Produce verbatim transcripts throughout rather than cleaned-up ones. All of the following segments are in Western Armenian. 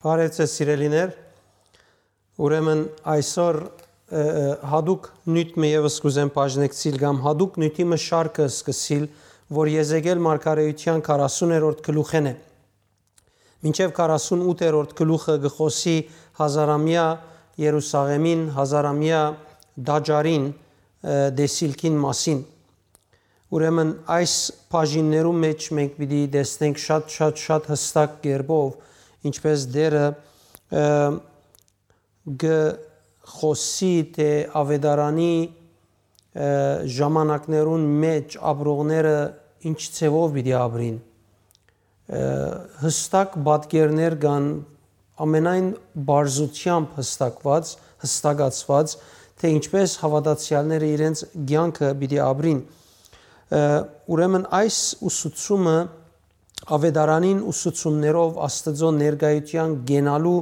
Բարեւ ձեզ, սիրելիներ։ Ուրեմն այսօր, ը, ը, յատուկ նիւթ մը եւս կ'ուզեմ բաժնեկցիլ կամ յատուկ նիւթի մը շարքը սկսիլ, որ Եզեկիել մարգարէութեան քառասուներորդ գլուխէն է։ Մինչեւ քառասունութերորդ գլուխը կը խօսի հազարամեայ Երուսաղէմին, հազարամեայ տաճարին, ը, տեսիլքին մասին։ Ուրեմն այս բաժիններու մէջ մենք պիտի տեսնենք շատ, շատ, շատ յստակ կերպով, ինչպես Տէրը, ը, կը խօսի, թէ աւետարանի, ը, ժամանակներուն մէջ ապրողները ինչ ձեւով պիտի ապրին։ Ը, յստակ պատկերներ կան, ամենայն պարզութեամբ յստակված, յստակացված, թէ ինչպես հաւատացեալները իրենց կեանքը պիտի ապրին։ Ը, ուրեմն այս ուսուցումը, աւետարանին ուսուցումներով Աստուծոյ ներկայութեան կենալու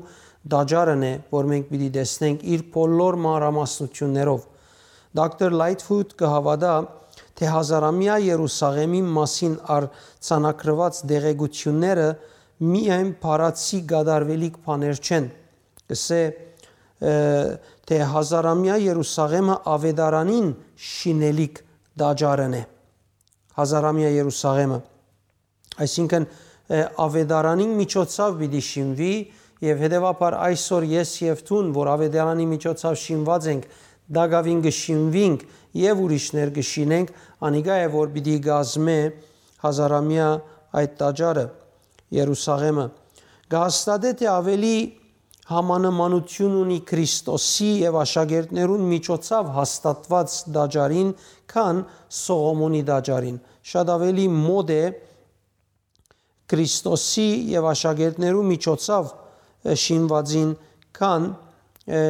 տաճարն է, որ մենք պիտի տեսնենք իր բոլոր մանրամասնութիւններով։ Դոկտոր Լայթֆուտ կը հաւատայ, թէ հազարամեայ Երուսաղէմի մասին արձանագրուած տեղեկութիւնները միայն բառացի կատարուելիք բաներ չեն։ Կ'ըսէ, ը, թէ հազարամեայ Երուսաղէմը աւետարանին շինելիք տաճարն է։ Հազարամեայ Երուսաղէմը, այսինքն, ը, աւետարանին միջոցաւ պիտի շինուի, եւ հետեւաբար այսօր ես եւ դուն, որ աւետարանի միջոցաւ շինուած ենք, տակաւին կը շինուինք եւ ուրիշներ կը շինենք, անիկա է, որ պիտի կազմէ հազարամեայ այդ տաճարը, Երուսաղէմը։ Կը հաստատէ, թէ աւելի համանմանութիւն ունի Քրիստոսի եւ աշակերտներուն միջոցաւ հաստատուած տաճարին, քան Սողոմոնի տաճարին։ Շատ աւելի մօտ է Քրիստոսի եւ աշակերտներու միջոցաւ, ը, շինուածին, քան, ը,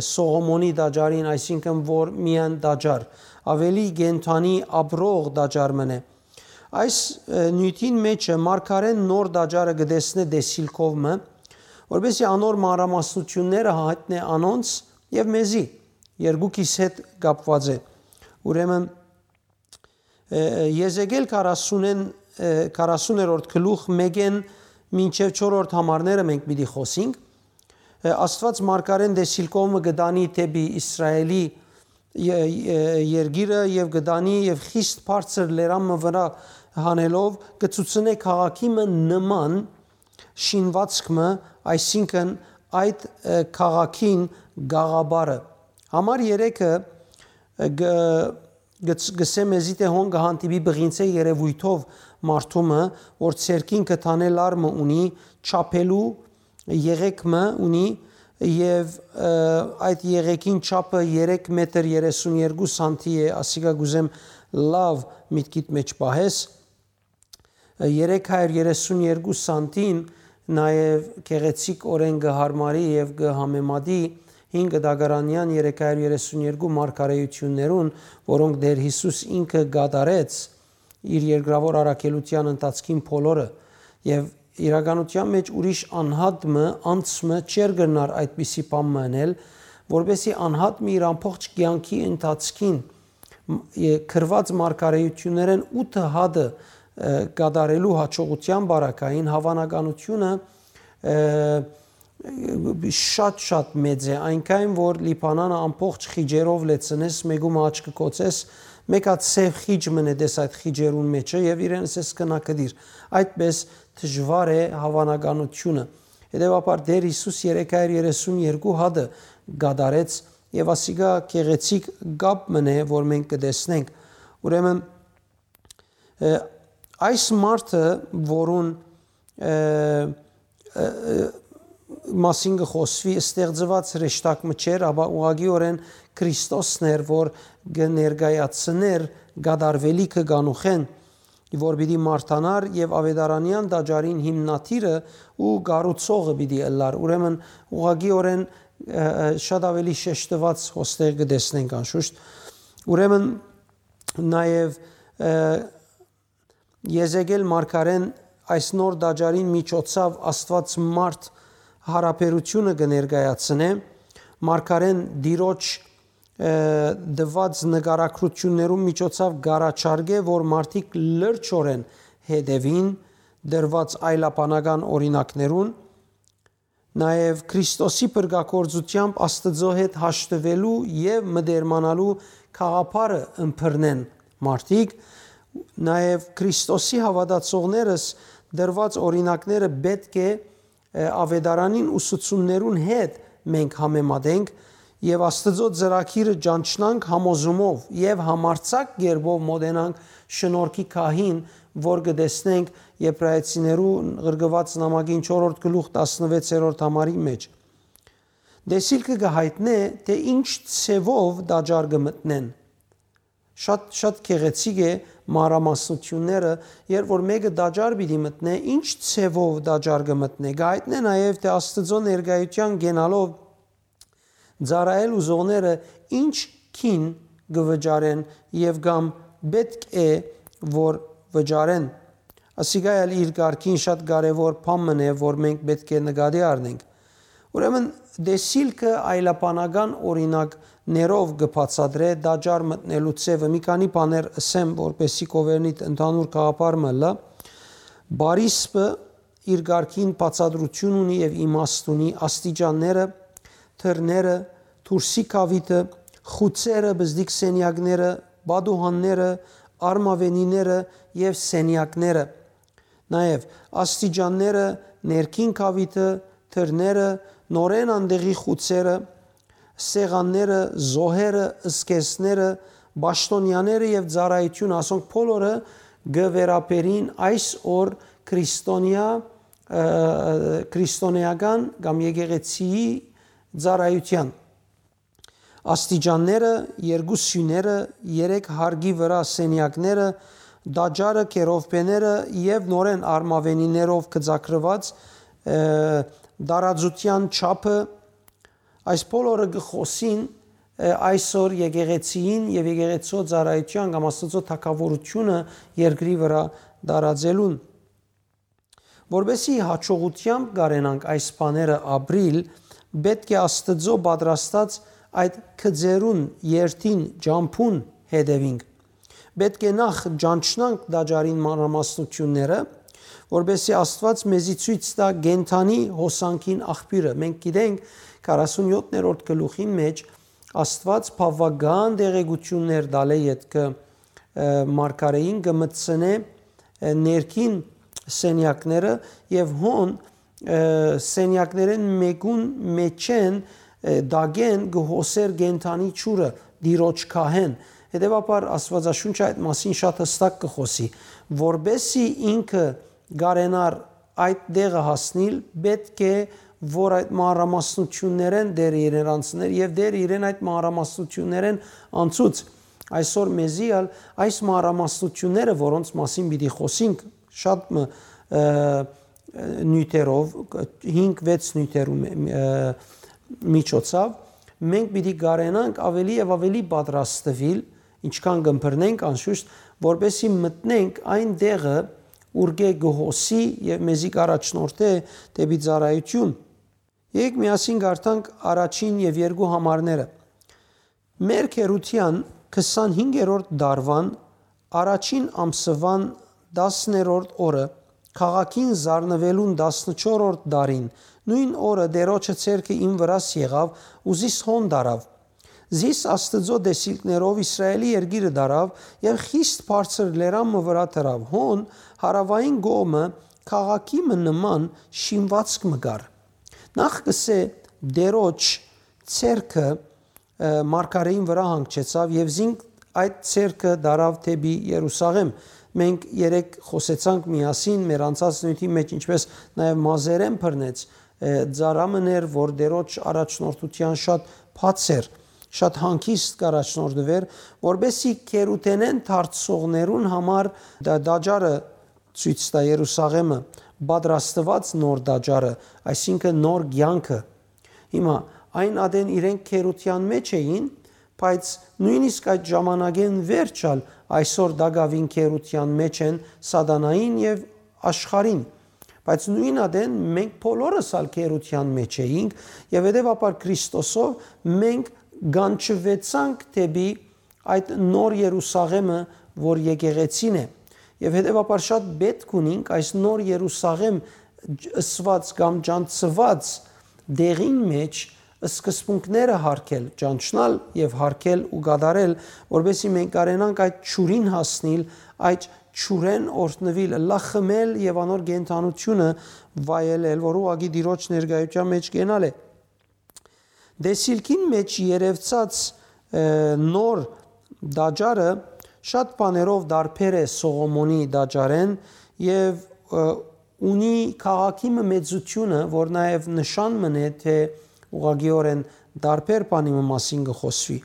Սողոմոնի տաճարին, այսինքն որ միայն տաճար, աւելի կենդանի ապրող տաճար մըն է։ Այս, ը, նիւթին մէջը մարգարէն նոր տաճարը կը տեսնէ տեսիլքով մը, որպեսզի անոր մանրամասնութիւնները յայտնէ անոնց եւ մեզի, երկուքիս հետ կապուած է։ Ուրեմն, ը, Եզեկիել քառասունէն, ը, քառասուներորդ գլուխ մէկէն մինչեւ չորրորդ համարները մենք պիտի խօսինք։ Ը, Աստուած մարգարէն տեսիլքով մը կը տանի դէպի Իսրայէլի ե-, ե-, երկիրը եւ կը տանի եւ խիստ բարձր լերան մը վրայ հանելով կը ցուցնէ քաղաքի մը նման շինուածք մը, այսինքն այդ, ը, քաղաքին գաղափարը։ Համար երեքը, ը, գ-, գ-, գսե մեզի թէ հոն կը հանդիպի բղինցէ երեւոյթով մարդու մը, որ ձեռքին կը տանէ լար մը ունի, չափելու եղեկ մը ունի եւ, ը, այդ եղեգին չափը երեք մետր երեսուն երկու սանտի է, ասիկա կ'ուզեմ լաւ միտքիդ մէջ պահես։ Երեք հարիւր երեսուն երկու սանտին նաեւ գեղեցիկ օրէն կը յարմարի եւ կը համեմատի հին կտակարանեան երեք հարիւր երեսուն երկու մարգարէութիւններուն, որոնք Տէր Յիսուս ինքը կատարեց իր երկրաւոր առաքելութեան ընթացքին բոլորը, եւ իրականութեան մէջ ուրիշ անհատ մը, անձ մը չէր կրնար այդպիսի բան մը ընել, որպեսզի անհատ մը իր ամբողջ կեանքի ընթացքին մ-, ե-, գրուած մարգարէութիւններէն ութը հատը, ը, կատարելու յաջողութեան պարագային, հաւանականութիւնը, ը, շատ-շատ մեծ է, այնքան որ Լիբանանը ամբողջ խիճերով լեցնես, մէկու մը աչքը կոծես, մէկ հատ սեւ խիճ մնե տես այդ խիճերուն մէջը եւ իրեն ասես գնա գտիր։ Այդպես դժուար է հաւանականութիւնը։ Հետեւաբար Տէր Յիսուս երեք հարիւր երեսուն երկու հատը կատարեց եւ ասիկա գեղեցիկ կապ մնե, որ մենք կը տեսնենք։ Ուրեմն, ը, այս մարդը, որուն, ը, ը, ը, մասին կը խօսուի, ստեղծուած հրեշտակ մը չէր, ապա ուղղակիօրէն Քրիստոսն էր, որ կը ներկայացնէր կատարուելիքը կանուխէն, որ պիտի մարտանար եւ աւետարանեան տաճարին հիմնադիրը ու կառուցողը պիտի ըլլար։ Ուրեմն ուղղակիօրէն, ը, ը, շատ աւելի շեշտուած հոստեղ կը տեսնենք անշուշտ։ Ուրեմն նաեւ, ը, Եզեկիել մարգարէն այս նոր տաճարին միջոցաւ Աստուած մարդ յարաբերութիւնը կը ներկայացնէ, մարգարէն Տիրոջ, ը, տուած նկարագրութիւններուն միջոցաւ կ'առաջարկէ, որ մարդիկ լրջօրէն հետեւին տրուած այլաբանական օրինակներուն, Նաեւ Քրիստոսի փրկագործութեամբ Աստուծոյ հետ հաշտուելու եւ մտերմանալու գաղափարը ըմբռնեն մարդիկ, նաեւ Քրիստոսի հաւատացողներս տրուած օրինակները պէտք է, ը, Աւետարանին ուսուցումներուն հետ մենք համեմատենք եւ Աստուծոյ ծրագիրը ճանչնանք համոզումով եւ համարձակ կերպով մոտենանք շնորհքի գահին, որ կը տեսնենք Եբրայեցիներու ղրկուած նամակին չորրորդ գլուխ տասնվեցերորդ համարի մէջ։ Տեսիլքը կը յայտնէ, թէ ինչ ձեւով տաճար կը մտնեն։ Շատ, շատ գեղեցիկ է մանրամասնութիւնները, երբ որ մէկը տաճար պիտի մտնէ, ինչ ձեւով տաճար կը մտնէ, կը յայտնէ նաեւ, թէ Աստուծոյ ներկայութեան կենալով ծառայել ուզողները ինչ գին կը վճարեն եւ կամ պէտք է որ վճարեն։ Ասիկա ալ իր կարգին շատ կարեւոր բան մըն է, որ մենք պէտք է նկատի առնենք։ Ուրեմն, տեսիլքը այլաբանական օրինակներով կը բացատրէ տաճար մտնելու ձեւը։ Մի քանի բաներ ըսեմ, որպեսզի կ'ովերնիդ ընդհանուր գաղափար մը ըլլայ։ Բարիսպը իր կարգին բացատրութիւն ունի եւ իմաստ ունի, աստիճանները, դռները, դուրսի գաւիթը, խուցերը, բզդիկ սենեակները, պատուհանները, արմաւենիները եւ սենեակները։ Նաեւ աստիճանները, ներքին գաւիթը, դռները, նորէն անտեղի խուցերը, սեղանները, զոհերը, զգեստները, պաշտօնեաները եւ ծառայութիւնը, ասոնք բոլորը կը վերաբերին այս օր քրիստոնեայ, ը, քրիստոնեական կամ եկեղեցիի ծառայութեան։ Աստիճանները, երկու սիւները, երեք հարկի վրայ սենեակները, տաճարը, կերովբեները եւ նորէն արմաւենիներով գծագրուած, ը, տարածութեան չափը, այս բոլորը կը խօսին, ը, այսօր եկեղեցիին եւ եկեղեցիոյ ծառայութեան կամ Աստուծոյ թագաւորութիւնը երկրի վրայ տարածելուն։ Որպեսզի յաջողութեամբ կարենանք այս բաները ապրիլ, պէտք է Աստուծոյ պատրաստած այդ գծերուն երթին ճամբուն հետեւինք։ Պէտք է նախ ճանչնանք տաճարին մանրամասնութիւնները, որպեսզի Աստուած մեզի ցոյց տայ կենդանի հոսանքին աղբիւրը։ Մենք գիտենք, քառասունեօթերորդ գլուխին մէջ Աստուած բաւական տեղեկութիւններ տալէ ետքը, ը, մարգարէին կը մտցնէ, ը, ներքին սենեակները եւ հոն, ը, սենեակներէն մէկուն մէջէն, ը, տակէն կը հոսէր կենդանի ջուրը, Տիրոջ գահէն։ Հետեւաբար Աստուածաշունչը այդ մասին շատ հստակ կը խօսի, որպեսզի ինքը կարենար այդ տեղը հասնիլ, պէտք է որ այդ մանրամասնութիւններէն Տէրը իրեն անցներ եւ Տէրը իրեն այդ մանրամասնութիւններէն անցուց։ Այսօր մեզի ալ այս մանրամասնութիւնները, որոնց մասին պիտի խօսինք շատ մը, ը, նիւթերով, հինգ-վեց նիւթերու մէ-, ը, միջոցաւ, մենք պիտի կարենանք ավելի եւ ավելի պատրաստվել, ինչքան կ'ըմբռնենք անշուշտ, որպեսզի մտնենք այն տեղը, ուրկէ կը հոսի եւ մեզի կ'առաջնորդէ դէպի ծառայութիւն։ Եկեք միասին կարդանք առաջին եւ երկու համարները։ Մեր քերութեան քսանհինգերորդ դարուան առաջին ամսուան տասներորդ օրը, քաղաքին զարնուելուն տասնչորրորդ տարին, նոյն օրը Տէրոջը ձեռքը իմ վրաս եղաւ ու զիս հոն տարաւ։ Զիս Աստուծոյ տեսիլքներով Իսրայէլի երկիրը տարաւ եւ խիստ բարձր լերան մը վրայ դրաւ։ Հոն հարաւային կողմը քաղաքի մը նման շինուածք մը կար։ Նախ կ'ըսէ, Տէրոջ ձեռքը, ը, մարգարէին վրայ հանգչեցաւ եւ զինք այդ ձեռքը տարաւ դէպի Երուսաղէմ։ Մենք երեկ խօսեցանք միասին մեր անցած նիւթի մէջ, ինչպէս նաեւ մազերէն բռնեց, ը, ծառայ մըն էր, որ Տէրոջ առաջնորդութեան շատ բաց էր, շատ հանգիստ կ'առաջնորդուէր, որպեսզի քերութենէն դարձողներուն համար դա տաճարը ցոյց տայ, Երուսաղէմը, պատրաստուած նոր տաճարը, այսինքն նոր կեանքը։ Հիմա այն ատեն իրենք քերութեան մէջ էին, բայց նոյնիսկ այդ ժամանակէն վերջ ալ այսօր տակաւին քերութեան մէջ են սատանային եւ աշխարհին։ Բայց նոյն ատեն մենք բոլորս ալ քերութեան մէջ էինք եւ հետեւաբար Քրիստոսով մենք կանչուեցանք դէպի այդ նոր Երուսաղէմը, որ եկեղեցին է։ Եւ հետեւաբար շատ պէտք ունինք այս նոր Երուսաղէմ ջ-, ըսուած կամ ճանչցուած Դեղին մէջ սկզբունքները յարգել, ճանչնալ եւ յարգել ու կատարել, որպեսզի մենք կարենանք այդ ջուրին հասնիլ, այդ ջուրէն օրհնուիլ, ըլլայ խմել եւ անոր կենդանութիւնը վայելել, որ ուղղակի Տիրոջ ներկայութեան մէջ կենալ է։ Դեսիլքին մէջ երեւցած, ը, նոր տաճարը շատ բաներով տարբեր է Սողոմոնի տաճարէն եւ, ը, ունի քաղաքի մը մեծութիւնը, որ նաեւ նշան մըն է, թէ ուղղակիօրէն տարբեր բանի մը մասին կը խօսուի։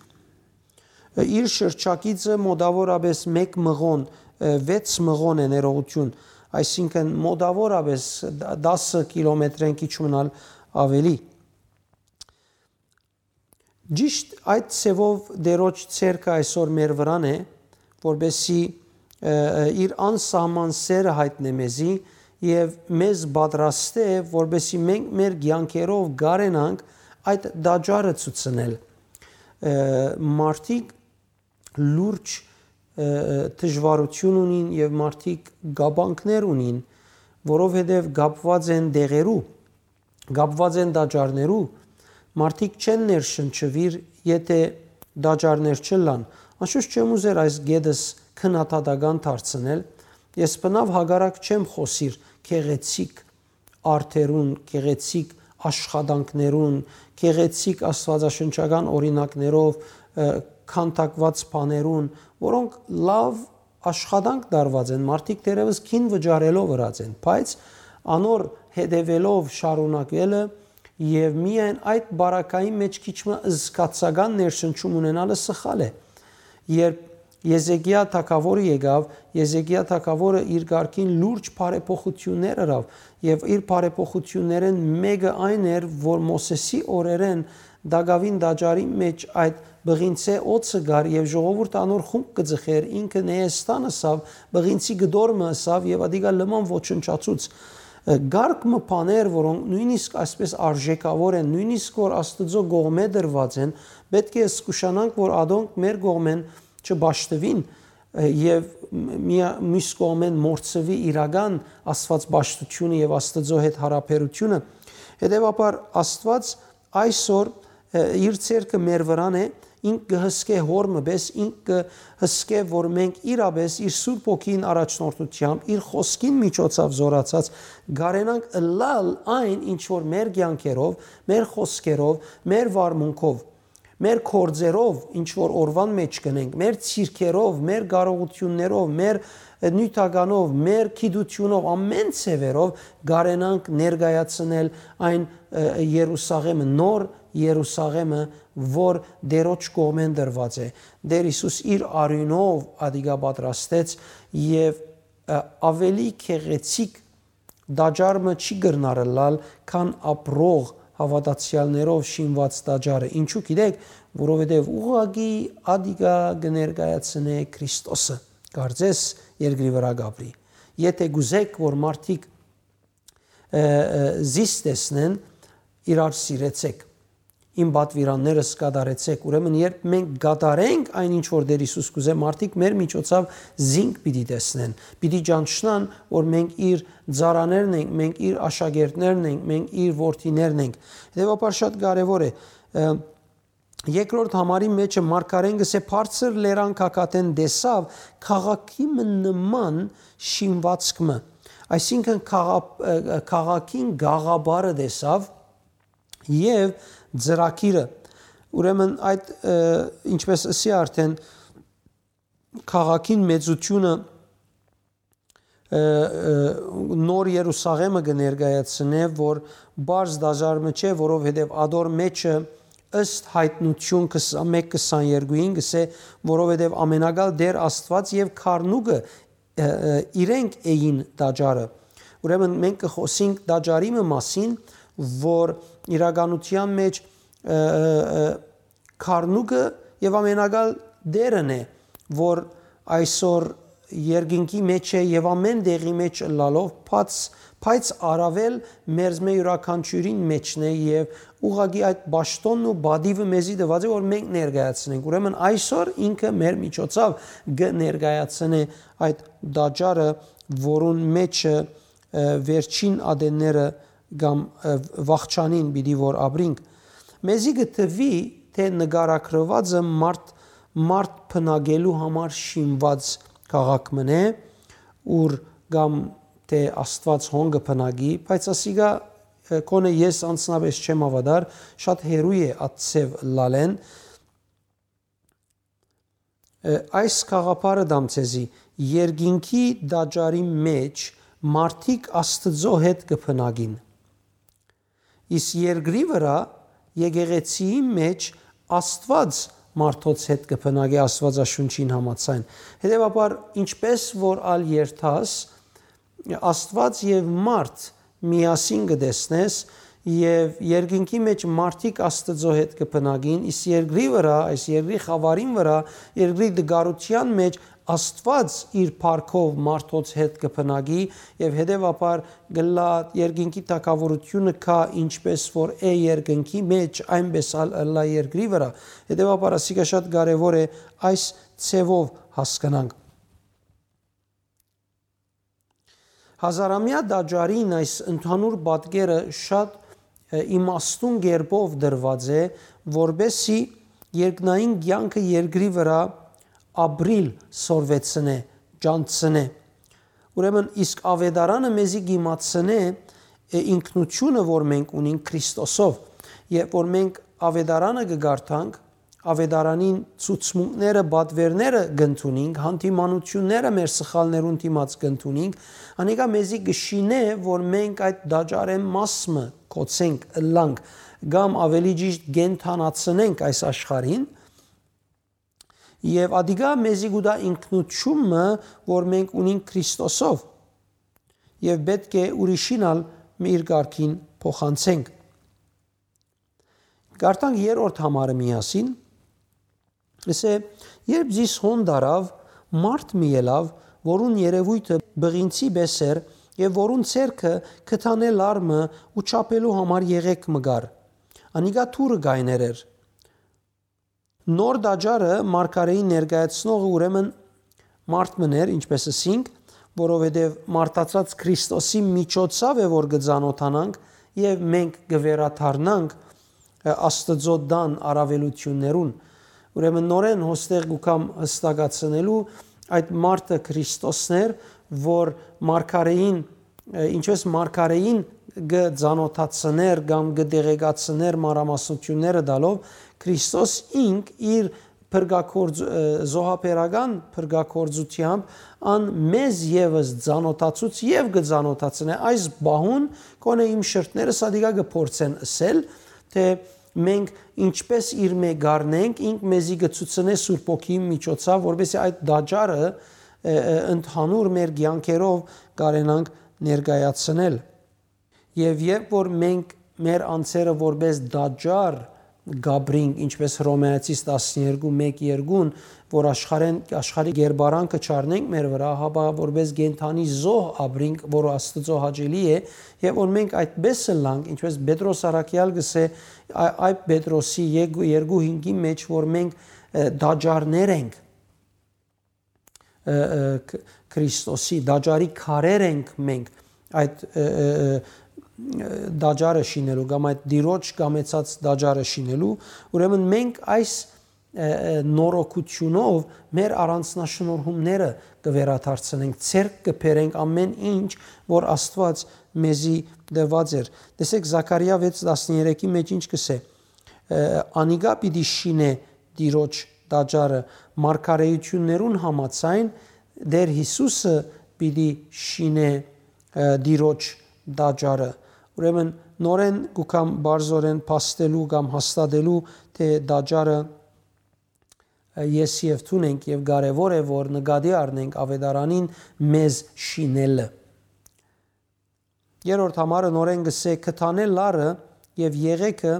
Ը, իր շրջագիծը մոտաւորապէս մէկ մղոն, ը, վեց մղոն է ներողութիւն, այսինքն մոտաւորապէս դ-, տասը կիլոմետրէն քիչ մնալ աւելի։ Ճիշտ այդ ձևով Տիրոջ ցերկը այսօր մեր վրան է, որպեսզի, ը, ը, իր անսահման սերը յայտնէ մեզի եւ մեզ պատրաստէ, որպեսզի մենք մեր կեանքերով կարենանք այդ տաճարը ցուցնել։ Ը, մարդիկ լուրջ, ը, ը, դժվարութիւն ունին եւ մարդիկ կապանքներ ունին, որովհետեւ կապուած են դեղերու, կապուած են տաճարներու, մարդիկ չեն ներշնչուիր, եթէ տաճարներ չըլլան։ Անշուշտ չեմ ուզեր այս գետս քննադատական դարձնել, ես բնաւ հակառակ չեմ խօսիր գեղեցիկ արտերուն, գեղեցիկ աշխատանքներուն, գեղեցիկ աստուածաշնչական օրինակներով, ը, քանդակուած բաներուն, որոնք լաւ աշխատանք տարուած են, մարդիկ դեռեւս գին վճարելով ըրած են, բայց անոր հետեւելով շարունակելը եւ միայն այդ բարակային մէջ քիչ մը զգացական ներշնչում ունենալը սխալ է։ Երբ Եզեկիա թագաւորը եկաւ, Եզեկիա թագաւորը իր կարգին լուրջ բարեփոխութիւններ ըրաւ եւ իր բարեփոխութիւններէն մէկը այն էր, որ Մովսէսի օրերէն տակաւին տաճարի մէջ այդ բղինցէ օծը կար եւ ժողովուրդը անոր խումբ կը ձգէր, ինքը Նեհեստան ըսաւ, բղինցի կտոր մը ըսաւ եւ ադիկա լման ոչնչացուց։ Ը, կարգ մը բաներ, որոնք նոյնիսկ այսպէս արժէքաւոր են, նոյնիսկ որ Աստուծոյ կողմէ դրուած են, պէտք է զգուշանանք, որ ադոնք մեր կողմէն չպաշտուին, ը, եւ մի-, միա-, միւս կողմէն մոռցուի իրական Աստուած պաշտութիւնը եւ Աստուծոյ հետ յարաբերութիւնը։ Հետեւաբար Աստուած այսօր, ը, իր ցերկը մեր վրան է, ինք կը հսկէ հոր մը պէս, ինք կը հսկէ, որ մենք իրապէս իր Սուրբ Հոգին առաջնորդութեամբ, իր խօսքին միջոցաւ զորացած, կարենանք ըլլալ այն, ինչ որ մեր կեանքերով, մեր խօսքերով, մեր վարմունքով, մեր գործերով, ինչ որ օրուան մէջ կ'ընենք, մեր ցիրքերով, մեր կարողութիւններով, մեր, ը, նիւթականով, մեր գիտութիւնով, ամէն ձեւերով կարենանք ներկայացնել այն, ը, Երուսաղէմը, նոր Երուսաղէմը, որ Տիրոջ կողմէն տրուած է։ Տէր Յիսուս իր արիւնով ադիկա պատրաստեց եւ, ը, աւելի գեղեցիկ տաճար մը չի կրնար ըլլալ, քան ապրող հաւատացեալներով շինուած տաճարը։ Ինչու՞ գիտեք, որովհետեւ ուղղակի ադիկա կը ներկայացնէ Քրիստոսը, կարծես երկրի վրայ կ'ապրի։ Եթէ կ'ուզեք, որ մարդիկ, ը, ը, զիս տեսնեն, իրար սիրեցեք, իմ պատուիրաններս կատարեցեք։ Ուրեմն, երբ մենք կատարենք այն, ինչ որ Տէր Յիսուս կ'ուզէ, մարդիկ մեր միջոցով զինք պիտի տեսնեն, պիտի ճանչնան, որ մենք իր ծառաներն ենք, մենք իր աշակերտներն ենք, մենք իր որդիներն ենք։ Հետեւաբար շատ կարեւոր է, ը, երկրորդ համարի մէջը մարգարէն կ'ըսէ. «Բարձր լերան գագաթէն տեսաւ քաղաքի մը նման շինվածք մը», այսինքն՝ քաղա-, ը, քաղաքին գաղափարը տեսաւ եւ ծրագիրը։ Ուրեմն այդ, ը, ինչպես ըսի արդեն, քաղաքին մեծութիւնը, ը, ը, նոր Երուսաղէմը կը ներկայացնէ, որ պարզ տաճար մը չէ, որովհետեւ ադոր մէջը, ըստ Յայտնութիւն քսան մէկ քսաներկուին, կ'ըսէ, որովհետեւ Ամենակալ Տէր Աստուած եւ Քարնուկը, ը, ը, իրենք էին տաճարը։ Ուրեմն մենք կը խօսենք տաճարի մը մասին, որ իրականութեան մէջ, ը, ը, ը, Քարնուկը եւ Ամենակալ Տէրն է, որ այսօր երկինքի մէջ է եւ ամէն տեղի մէջ ըլլալով, բաց, բայց առաւել մերզմէ իւրաքանչիւրին մէջն է եւ ուղղակի այդ պաշտոնն ու պատիվը մեզի տուած է, որ մենք ներկայացնենք։ Ուրեմն այսօր ինքը մեր միջոցով կը ներկայացնէ այդ տաճարը, որուն մէջը, ը, վերջին ատենները կամ, ը, վախճանին պիտի որ ապրինք։ Մեզի կը թուի, թէ նկարագրուածը մարդ, մարդ բնակելու համար շինուած քաղաք մըն է, ուր կամ թէ Աստուած հոն կը բնակի, բայց ասիկա, ը, գոնե ես անձնապէս չեմ հաւատար, շատ հեռու է այդ ձեւ ըլլալէն։ Ը, այս գաղափարը տամ ձեզի, երկինքի տաճարի մէջ մարդիկ Աստուծոյ հետ կը բնակին։ Իսկ երկրի վրայ, եկեղեցիի մէջ Աստուած մարդոց հետ կը բնակի Աստուածաշունչին համաձայն։ Հետեւաբար, ինչպէս որ ալ երթաս, Աստուած եւ մարդ միասին կը տեսնես, եւ երկինքի մէջ մարդիկ Աստուծոյ հետ կը բնակին, իսկ երկրի վրայ, այս երկրի խաւարին վրայ, երկրի տկարութեան մէջ Աստուած իր փառքով մարդոց հետ կը բնակի, եւ հետեւաբար գլա երկինքի թակաւորութիւնը կայ, ինչպէս որ է երկնքի մէջ, այնպէս ալ ըլլայ երկրի վրայ։ Հետեւաբար ասիկա շատ կարեւոր է այս ձեւով հասկնանք։ Հազարամեայ տաճարին այս ընդհանուր պատկերը շատ, ը, իմաստուն կերպով դրուած է, որպեսզի երկնային կեանքը երկրի վրայ ապրիլ սորվեցնէ, ճանչցնէ։ Ուրեմն, իսկ աւետարանը մեզի կ'իմացնէ, ը, ինքնութիւնը, որ մենք ունենք Քրիստոսով, եւ որ մենք աւետարանը կը կարդանք, աւետարանին ցուցմունքները, պատուէրները կ'ընդունինք, հանդիմանութիւնները մեր սխալներուն դիմաց կ'ընդունինք, անիկա մեզի կը շինէ, որ մենք այդ տաճարէն մաս մը կ'օցենք, ըլլանք, կամ աւելի ճիշդ կենդանացնենք այս աշխարհին, եւ ադիկա մեզի կու տայ ինքնութիւն մը, որ մենք ունենք Քրիստոսով, եւ պէտք է ուրիշին ալ իր կարգին փոխանցենք։ Կարդանք երրորդ համարը միասին։ Ասէ, երբ զիս հոն տարաւ, մարդ մի ելաւ, որուն երեւոյթը բղինցի պէս էր, եւ որուն ձեռքը կտանէ լար մը ու չափելու համար եղեկ մը կար։ Անիկա դուռը կայներ էր։ Նոր տաճարը մարգարէին ներկայացնողը ուրեմն մարդ մըն էր, ինչպէս ըսինք, որովհետեւ մարդացած Քրիստոսի միջոցաւ է, որ կը ծանօթանանք եւ մենք կը վերադառնանք, ը, Աստուծոյ տան առաւելութիւններուն։ Ուրեմն նորէն հոստեղ կու կամ հստակացնելու այդ մարդը Քրիստոսն էր, որ մարգարէին, ը, ինչպես մարգարէին կը ծանօթացներ կամ կը տեղեկացներ մանրամասնութիւնները տալով, Քրիստոս ինք իր փրկագործ-, ը, զոհաբերական փրկագործութեամբ ան մեզ եւս ծանօթացուց եւ կը ծանօթացնէ։ Այս պահուն կոնե իմ շրթները սադիկա կը փորձեն ըսել, թէ մենք ինչպես իր մէ գարնենք, ինք մեզի կը ցուցնէ Սուրբ Հոգիի միջոցաւ, որպեսզի այդ տաճարը, ը, ը, ընդհանուր մեր կեանքերով կարենանք ներկայացնել։ Եւ երբ որ մենք մեր անձերը որպես տաճար կապրինք, ինչպես Հռոմեացիս տասներկու մէկ երկուն, որ աշխարհեն, աշխարհի կերպարանքը չառնենք մեր վրայ, հապա որպես կենդանի զոհ ապրինք, որ Աստուծոյ հաճելի է, եւ որ մենք այդպես ըլլանք, ինչպես Պետրոս առաքյալ կ'ըսէ, ա-, այդ Պետրոսի երկու, երկու հինգի մեջ, որ մենք, ը, տաճարներ ենք, ը, ը, Ք-, Քրիստոսի, տաճարի քարեր ենք մենք, այդ, ը, ը, ը, տաճարը շինելու կամ այդ Տիրոջ կամեցած տաճարը շինելու, ուրեմն մենք այս, ը, ը, նորոգութիւնով մեր առանձնաշնորհումները կը վերադարձնենք, ձեռք կը բերենք ամէն ինչ, որ Աստուած մեզի տված էր։ Տեսեք, Զաքարիա վեց տասներեքի մեջ ինչ կ'ըսէ. ը, անիկա պիտի շինէ Տիրոջ տաճարը, մարգարէութիւններուն համաձայն Տէր Յիսուսը պիտի շինէ, ը, Տիրոջ տաճարը։ Ուրեմն նորէն կու կամ բարձորեն փաստելու կամ հաստատելու, թէ տաճարը, ը, ես եւ դուն ենք, եւ կարեւոր է, որ նկատի առնենք աւետարանին մեզ շինելը։ Երրորդ համարը նորէն կ'ըսէ, կտանէ լարը եւ եղեքը,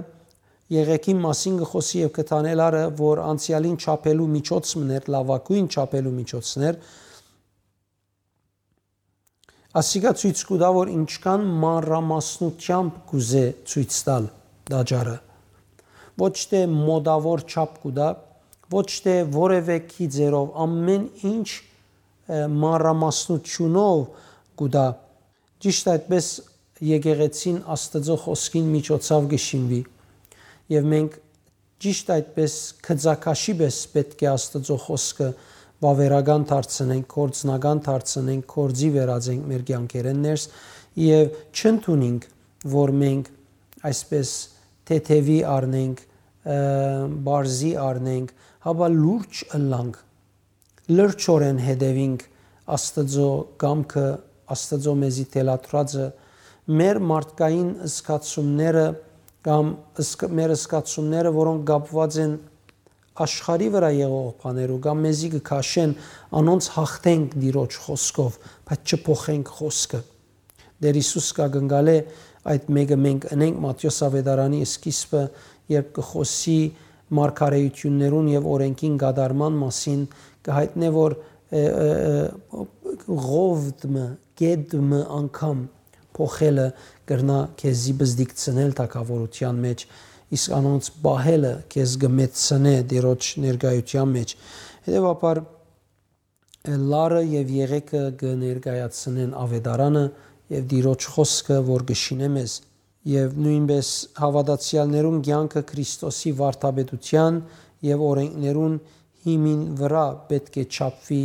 եղեքին մասին կը խօսի եւ կտանէ լարը, որ անցեալին չափելու միջոց մըն էր, լաւագոյն չափելու միջոցն էր, ասիկա ցոյց կու տայ, որ ինչքան մանրամասնութեամբ կ'ուզէ ցոյց տալ տաճարը։ Ոչ թէ մոտաւոր չափ կու տայ, ոչ թէ որեւէ գիծերով, ամէն ինչ, ը, մանրամասնութիւնով կու տայ։ Ճիշդ այդպես եկեղեցին Աստուծոյ խօսքին միջոցաւ կը շինուի։ Եւ մենք ճիշդ այդպէս գծակաշի պէս պէտք է Աստուծոյ խօսքը վաւերական դարձնենք, գործնական դարձնենք, գործի վերածենք մեր կեանքերէն ներս եւ չընդունենք, որ մենք այսպէս թեթեւի առնենք, ը, բարձի առնենք, հապա լուրջ ըլլանք, լրջորեն հետեւինք Աստուծոյ կամքը, Աստուծոյ մեզի թելադրածը, մեր մարդկային զգացումները կամ զգ-, մեր զգացումները, որոնք կապուած են աշխարհի վրայ եղող բաներու կամ մեզի կը քաշեն, անոնց յաղթենք Տիրոջ խօսքով, բայց չփոխենք խօսքը։ Տէր Յիսուս կ'ակնկալէ այդ մէկը մենք ընենք Մատթէոս աւետարանի սկիզբը, երբ կը խօսի մարգարէութիւններուն եւ օրէնքին կատարման մասին, կը յայտնէ, որ, ը, ը, ը, ղովդ մը, կետ մը անգամ փոխելը կրնայ քեզի բզդիկցնել թագաւորութեան մէջ, իսկ անոնց պահելը քեզ կը մեծցնէ Տիրոջ ներկայութեան մէջ։ Հետեւաբար, լարը եւ եղեգը կը ներկայացնեն աւետարանը եւ Տիրոջ խօսքը, որ կը շինէ մեզ, եւ նոյնպէս հաւատացեալներուն կեանքը Քրիստոսի վարդապետութեան եւ օրէնքներուն հիմին վրայ պէտք է չափուի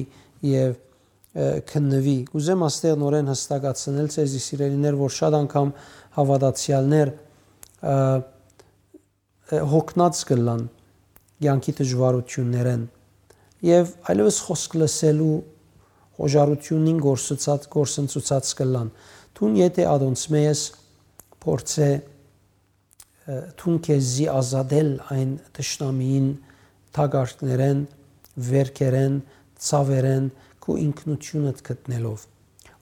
եւ, ը, քննուի։ Կ'ուզեմ աստեղ նորէն յստակացնել ձեզի, սիրելիներ, որ շատ անգամ հաւատացեալներ, ը, ը, յոգնած կ'ըլլան կեանքի դժուարութիւններէն եւ այլեւս խօսք լսելու խոժարութիւնին գործուցած, գործընծուցած կ'ըլլան։ Դուն եթէ ատոնցմէ ես, փորձէ, ը, դուն քեզի ազատել այն թշնամիին թակարդներէն, վերքերէն, ցաւերէն, քու ինքնութիւնդ գտնելով։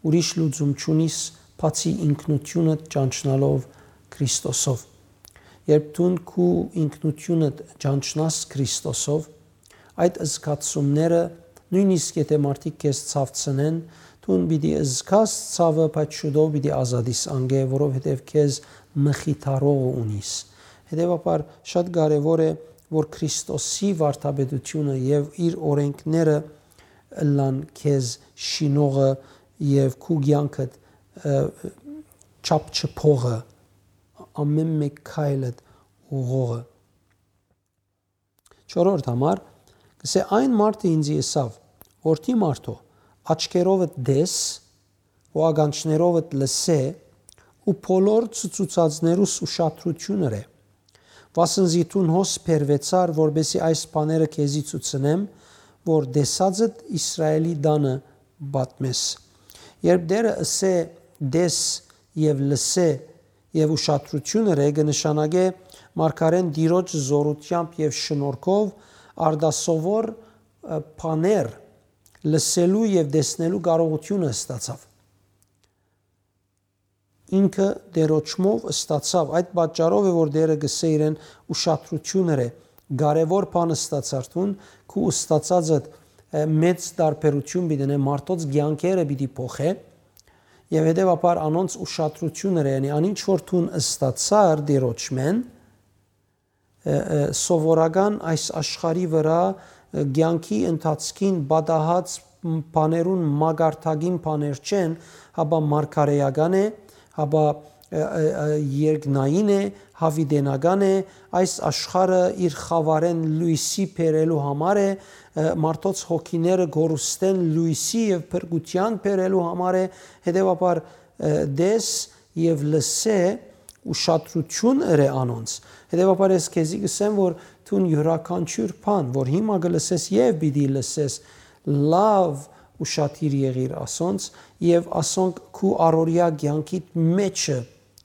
Ուրիշ լուծում չունիս, բացի ինքնութիւնդ ճանչնալով Քրիստոսով։ Երբ դուն քու ինքնութիւնդ ճանչնաս Քրիստոսով, այդ զգացումները, նոյնիսկ եթէ մարդիկ քեզ ցաւցնեն, դուն պիտի զգաս ցաւը, բայց շուտով պիտի ազատիս անկէ, որովհետեւ քեզ մխիթարողը ունիս։ Հետեւաբար շատ կարեւոր է, որ Քրիստոսի վարդապետութիւնը եւ իր օրէնքները ըլլան քեզ շինողը եւ քու կեանքդ, ը, չափ չփողը, ամէն մէկ քայլդ ուղղողը։ Չորրորդ համար, կսէ. «Այն մարդը ինծի ըսաւ. "Որդի մարդոյ, աչքերովդ տես ու ականջներովդ լսէ ու բոլոր ցուցուցածներուս ուշադրութիւն ըրէ, վասն զի դուն հոս բերուեցար, որպեսզի այս բաները քեզի ցուցնեմ, որ տեսածդ Իսրայէլի տանը պատմես"։ Երբ Տէրը ըսէ. "Տես եւ լսէ" եւ "ուշադրութիւն ըրէ", կը նշանակէ մարգարէն Տիրոջ զօրութեամբ եւ շնորհքով արտասովոր, ը, բաներ լսելու եւ տեսնելու կարողութիւնը ստացաւ։ Ինքը Տէրոջմով ստացաւ, այդ պատճառով է, որ Տէրը կ'ըսէ իրեն. "Ուշադրութիւն ըրէ, կարեւոր բան ստացար դուն, քու ստացածդ, ը, մեծ տարբերութիւն պիտի ընէ, մարդոց կեանքերը պիտի փոխէ", եւ հետեւաբար անոնց ուշադրութիւն ըրէ, յանի, անինչ որ դուն ստացար Տէրոջմէն, ը, ը, սովորական այս աշխարհի վրայ, ը, կեանքի ընթացքին պատահած բաներուն մակարդակին բաներ չեն, հապա մարգարէական է, հապա, ը, ը, ը, երկնային է, յաւիտենական է, այս աշխարհը իր խաւարէն լոյսի բերելու համար է, ը, մարդոց հոգիները գորուստէն լոյսի եւ փրկութեան բերելու համար է, հետեւաբար, ը, տես եւ լսէ, ուշադրութիւն ըրէ անոնց։ Հետեւաբար ես քեզի կ'ըսեմ, որ դուն իւրաքանչիւր բան, որ հիմա կը լսես եւ պիտի լսես, լաւ ուշադիր եղիր ասոնց եւ ասոնք քու առօրեայ կեանքիդ մէջը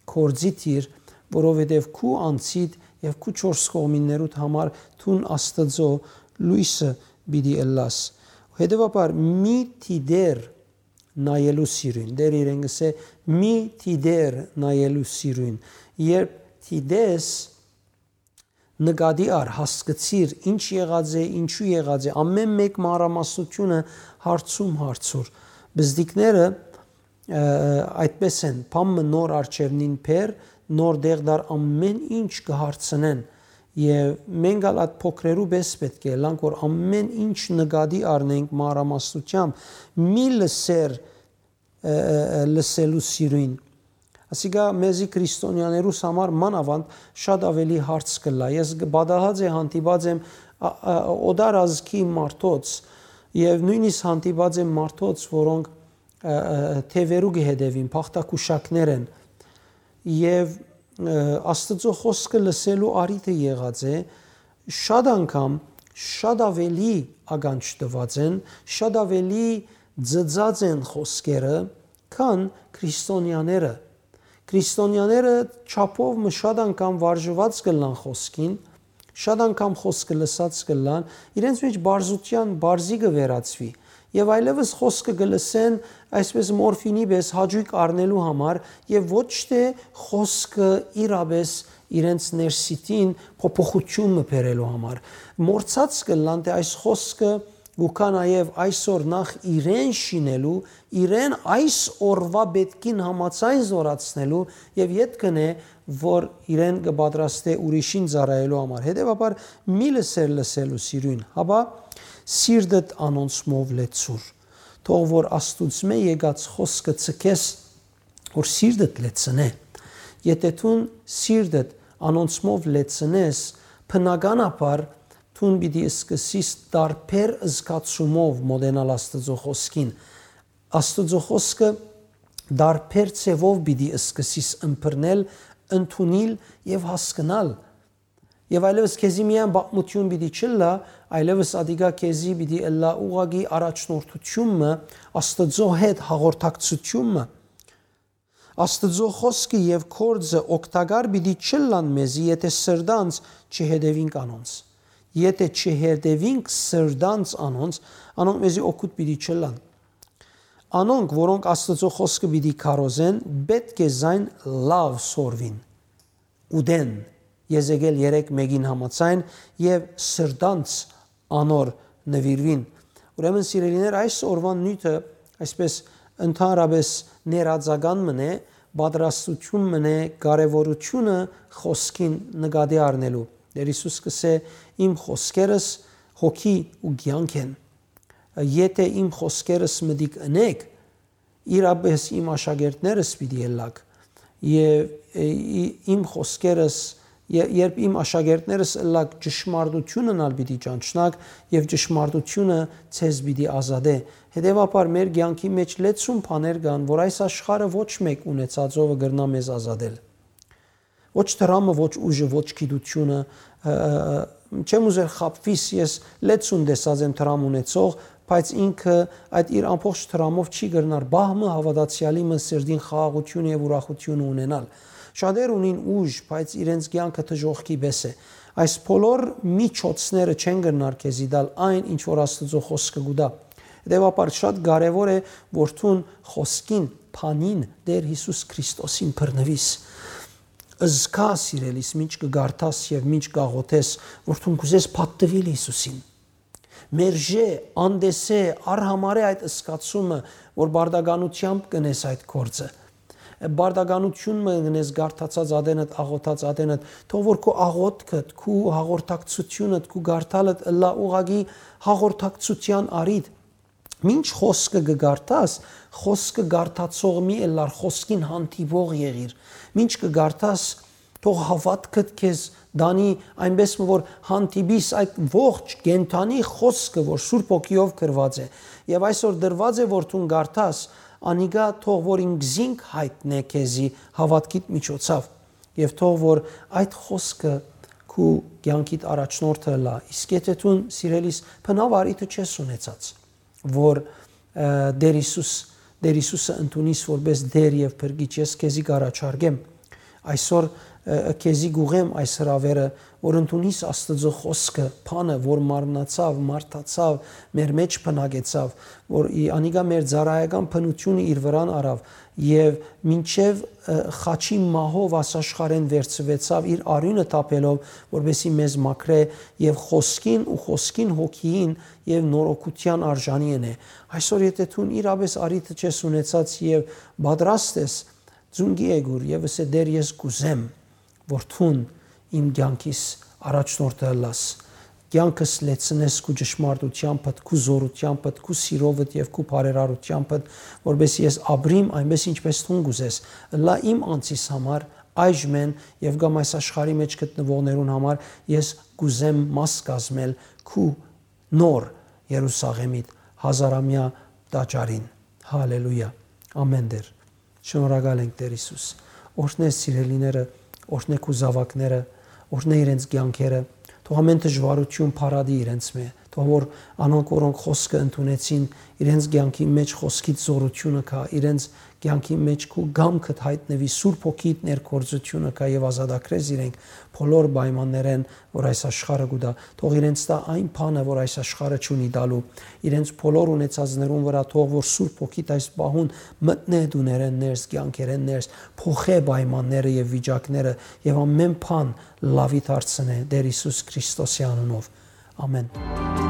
գործի դիր, որովհետեւ քու անձիդ եւ քու չորս կողմիններուդ համար դուն Աստուծոյ լոյսը պիտի ըլլաս։ Հետեւաբար մի դիտեր նայելու սիրոյն։ Տէրը իրեն կ'ըսէ. "Մի դիտեր նայելու սիրոյն"։ Երբ դիտես, նկատի առ, հասկցիր, ինչ եղած է, ինչու եղած է, ամէն մէկ մանրամասնութիւնը հարցում հարցուր։ Բզդիկները, ը, այդպես են, բան մը նոր արջեւնին բեր, նոր դեղ դար, ամէն ինչ կը հարցնեն։ Եւ մենք ալ այդ փոքրերու պես պէտք է ըլլանք, որ ամէն ինչ նկատի առնենք մանրամասնութեամբ, մի լսեր, ը, ը, ը, լսելու սիրոյն, Ասիկա մեզի քրիստոնեաներուս համար մանաւանդ շատ աւելի հարց կ'ըլլայ։ Ես կը պատահած է հանդիպած եմ ա- ա- օտար ազգի մարդոց եւ նոյնիսկ հանդիպած եմ մարդոց, որոնք ը, ը, թեւերու կը հետեւին, փախտակուշակներ են։ Եւ ը, Աստուծոյ խօսքը լսելու առիթը եղած է, շատ անգամ շատ աւելի ականջ տուած են, շատ աւելի ծծած են խօսքերը, քան քրիստոնեաները։ Քրիստոնեաները չափով մը շատ անգամ վարժուած կ'ըլլան խօսքին, շատ անգամ խօսքը լսած կ'ըլլան, իրենց մէջ պարզութեան պարզի կը վերածուի։ Եւ այլեւս խօսքը կը լսեն այսպես մորֆինի պէս հաճոյք առնելու համար եւ ոչ թէ խօսքը իրապէս իրենց ներսիտին փոփոխութիւն մը բերելու համար։ Մոռցած կ'ըլլան թէ այս խօսքը կու գայ նաեւ այսօր նախ իրեն շինելու, իրեն այս օրուայ պէտքին համաձայն զօրացնելու եւ ետք ընէ, որ իրեն կը պատրաստէ ուրիշին ծառայելու համար։ Հետեւաբար մի լսեր լսելու սիրոյն, հապա սիրտդ անոնցմով լեցուր։ Թող որ Աստուծմէ եկած խօսքը ձգես, որ սիրտդ լեցնէ։ Եթէ դուն սիրտդ անոնցմով լեցնես, բնականաբար դուն պիտի սկսես տարբեր զգացումով մոտենալ Աստուծոյ խօսքին։ Աստուծոյ խօսքը տարբեր ձեւով պիտի սկսես ըմբռնել, ընդունիլ եւ հասկնալ։ Եւ այլեւս քեզի միայն պատմութիւն պիտի չըլլայ, այլեւս ատիկա քեզի պիտի ըլլայ ուղղակի առաջնորդութիւն մը, Աստուծոյ հետ հաղորդակցութիւն մը։ Աստուծոյ խօսքը եւ գործը օգտակար պիտի չըլլան մեզի, եթէ սրտանց չհետեւինք անոնց։ Եթէ չհետեւինք սրտանց անոնց, անոնք մեզի օգուտ պիտի չըլլան։ Անոնք, որոնք Աստուծոյ խօսքը պիտի քարոզեն, պէտք է զայն լաւ սորվին, ուտեն, Եզեկիել երեք մէկին համաձայն, եւ սրտանց անոր նուիրուին։ Ուրեմն, սիրելիներ, այս օրուան նիւթը այսպես ընդհանրապէս ներածական մըն է, պատրաստութիւն մըն է կարեւորութիւնը խօսքին նկատի առնելու։ Տէր Յիսուս կ'ըսէ. «Իմ խօսքերս հոգի ու կեանք են։ Եթէ իմ խօսքերս մտիկ ընէք, իրապէս իմ աշակերտներս պիտի ըլլաք, եւ, ը, ի- իմ խօսքերս, ե- երբ իմ աշակերտներս ըլլաք, ճշմարտութիւնն ալ պիտի ճանչնաք, եւ ճշմարտութիւնը ձեզ պիտի ազատէ»։ Հետեւաբար, մեր կեանքի մէջ լեցուն բաներ կան, որ այս աշխարհը ոչ մէկ ունեցածովը կրնայ մեզ ազատել։ Ոչ դրամը, ոչ ուժը, ոչ գիտությունը, ը, ը, ը, չեմ ուզեր խաբվիս, ես լեցուն տեսած եմ դրամ ունեցող, բայց ինքը այդ իր ամբողջ դրամով չի կրնար պահ մը հաւատացեալի մը սրտին խաղաղութիւնը եւ ուրախութիւնը ունենալ։ Շատեր ունին ուժ, բայց իրենց կեանքը դժոխքի պէս է։ Այս բոլոր միջոցները չեն կրնար քեզի տալ այն, ինչ որ Աստուծոյ խօսքը կու տայ։ Հետեւաբար, շատ կարեւոր է, որ դուն խօսքին, բանին, Տէր Յիսուս Քրիստոսին բռնուիս։ Զգա, սիրելիս, մինչ կը կարդաս եւ մինչ կ'աղօթես, որ դուն կ'ուզես պատտուիլ Յիսուսին։ Մերժէ, անտեսէ, արհամարէ այդ զգացումը, որ բարդականությամբ կ'ընես այդ գործը։ Բարդականութիւն մը կ'ընես կարդացած ատենդ, աղօթած ատենդ, թող որ քու աղօթքդ, քու հաղորդակցութիւնդ, քու կարդալդ ըլլայ ուղղակի հաղորդակցութեան առիթ։ Մինչ խօսքը կը կարդաս, խօսքը կարդացող մի ըլլար, խօսքին հանդիպող եղիր։ Մինչ կը կարդաս, թող հաւատքդ քեզ տանի այնպէս մը, որ հանդիպիս այդ ողջ կենդանի խօսքը, որ Սուրբ Հոգիով գրուած է, եւ այսօր տրուած է, որ դուն կարդաս, անիկա թող որ ինքզինք յայտնէ քեզի հաւատքիդ միջոցով, եւ թող որ այդ խօսքը քու կեանքիդ առաջնորդը ըլլայ, իսկ եթէ դուն, սիրելիս, բնաւ առիթը չես ունեցած, որ, ը, Տէր Յիսուս, Տէր Յիսուսը ընդունիս որպես Տէր եւ Փրկիչ, ես քեզի կ'առաջարկեմ այսօր, ը, քեզի կ'ուղեմ այս հրաւերը, որ ընդունիս Աստուծոյ խօսքը, բանը, որ մարմնացաւ, մարդացաւ, մեր մէջ բնակեցաւ, որ ի- անիկա մեր ծառայական բնութիւնը իր վրան առաւ եւ մինչեւ, ը, խաչի մահով այս աշխարհէն վերցուեցաւ, իր արիւնը թափելով, որպեսզի մեզ մաքրէ եւ խօսքին ու խօսքին հոգիին եւ նորոգութեան արժանի ընէ։ Այսօր, եթէ դուն իրապէս առիթը չես ունեցած եւ պատրաստ ես, ծունկի եկուր եւ ըսէ. «Տէր, ես կ'ուզեմ, որ դուն իմ կեանքիս առաջնորդը ըլլաս»։ կեանքս լեցնես քու ճշմարտութեամբդ, քու զօրութեամբդ, քու սիրովդ եւ քու բարերարութեամբդ, որպէս ես ապրիմ այնպէս, ինչպէս դուն կ'ուզես, ըլլայ իմ անձիս համար, այժմէն եւ կամ այս աշխարհի մէջ գտնուողներուն համար ես կ'ուզեմ մաս կազմել քու նոր Երուսաղէմիդ հազարամեայ տաճարին։ Հալելույա։ Ամեն Տէր։ Շնորհակալ ենք, Տէր Յիսուս։ Օրհնէ սիրելիները, օրհնէ քու զաւակները, օրհնէ իրենց կեանքերը, թող ամեն դժուարութիւն փարատի իրենց մէ, թող որ անոնք, որոնք խօսքը ընդունեցին, իրենց կեանքի մէջ խօսքիդ զօրութիւնը կայ, իրենց կեանքի մէջ քու կամքդ յայտնուի, Սուրբ Հոգիդ ներգործութիւնը կայ եւ ազատագրես իրենք բոլոր պայմաններէն, որ այս աշխարհը կու տայ։ Թող իրենց տայ այն բանը, որ այս աշխարհը չունի տալու։ Իրենց բոլոր ունեցածներուն վրայ թող որ Սուրբ Հոգիդ այս պահուն մտնէ տուներէն ներս, կեանքերէն ներս, փոխէ պայմանները եւ վիճակները եւ ամեն բան լաւի դարձնէ Տէր Յիսուս Քրիստոսի անունով։ Ամեն։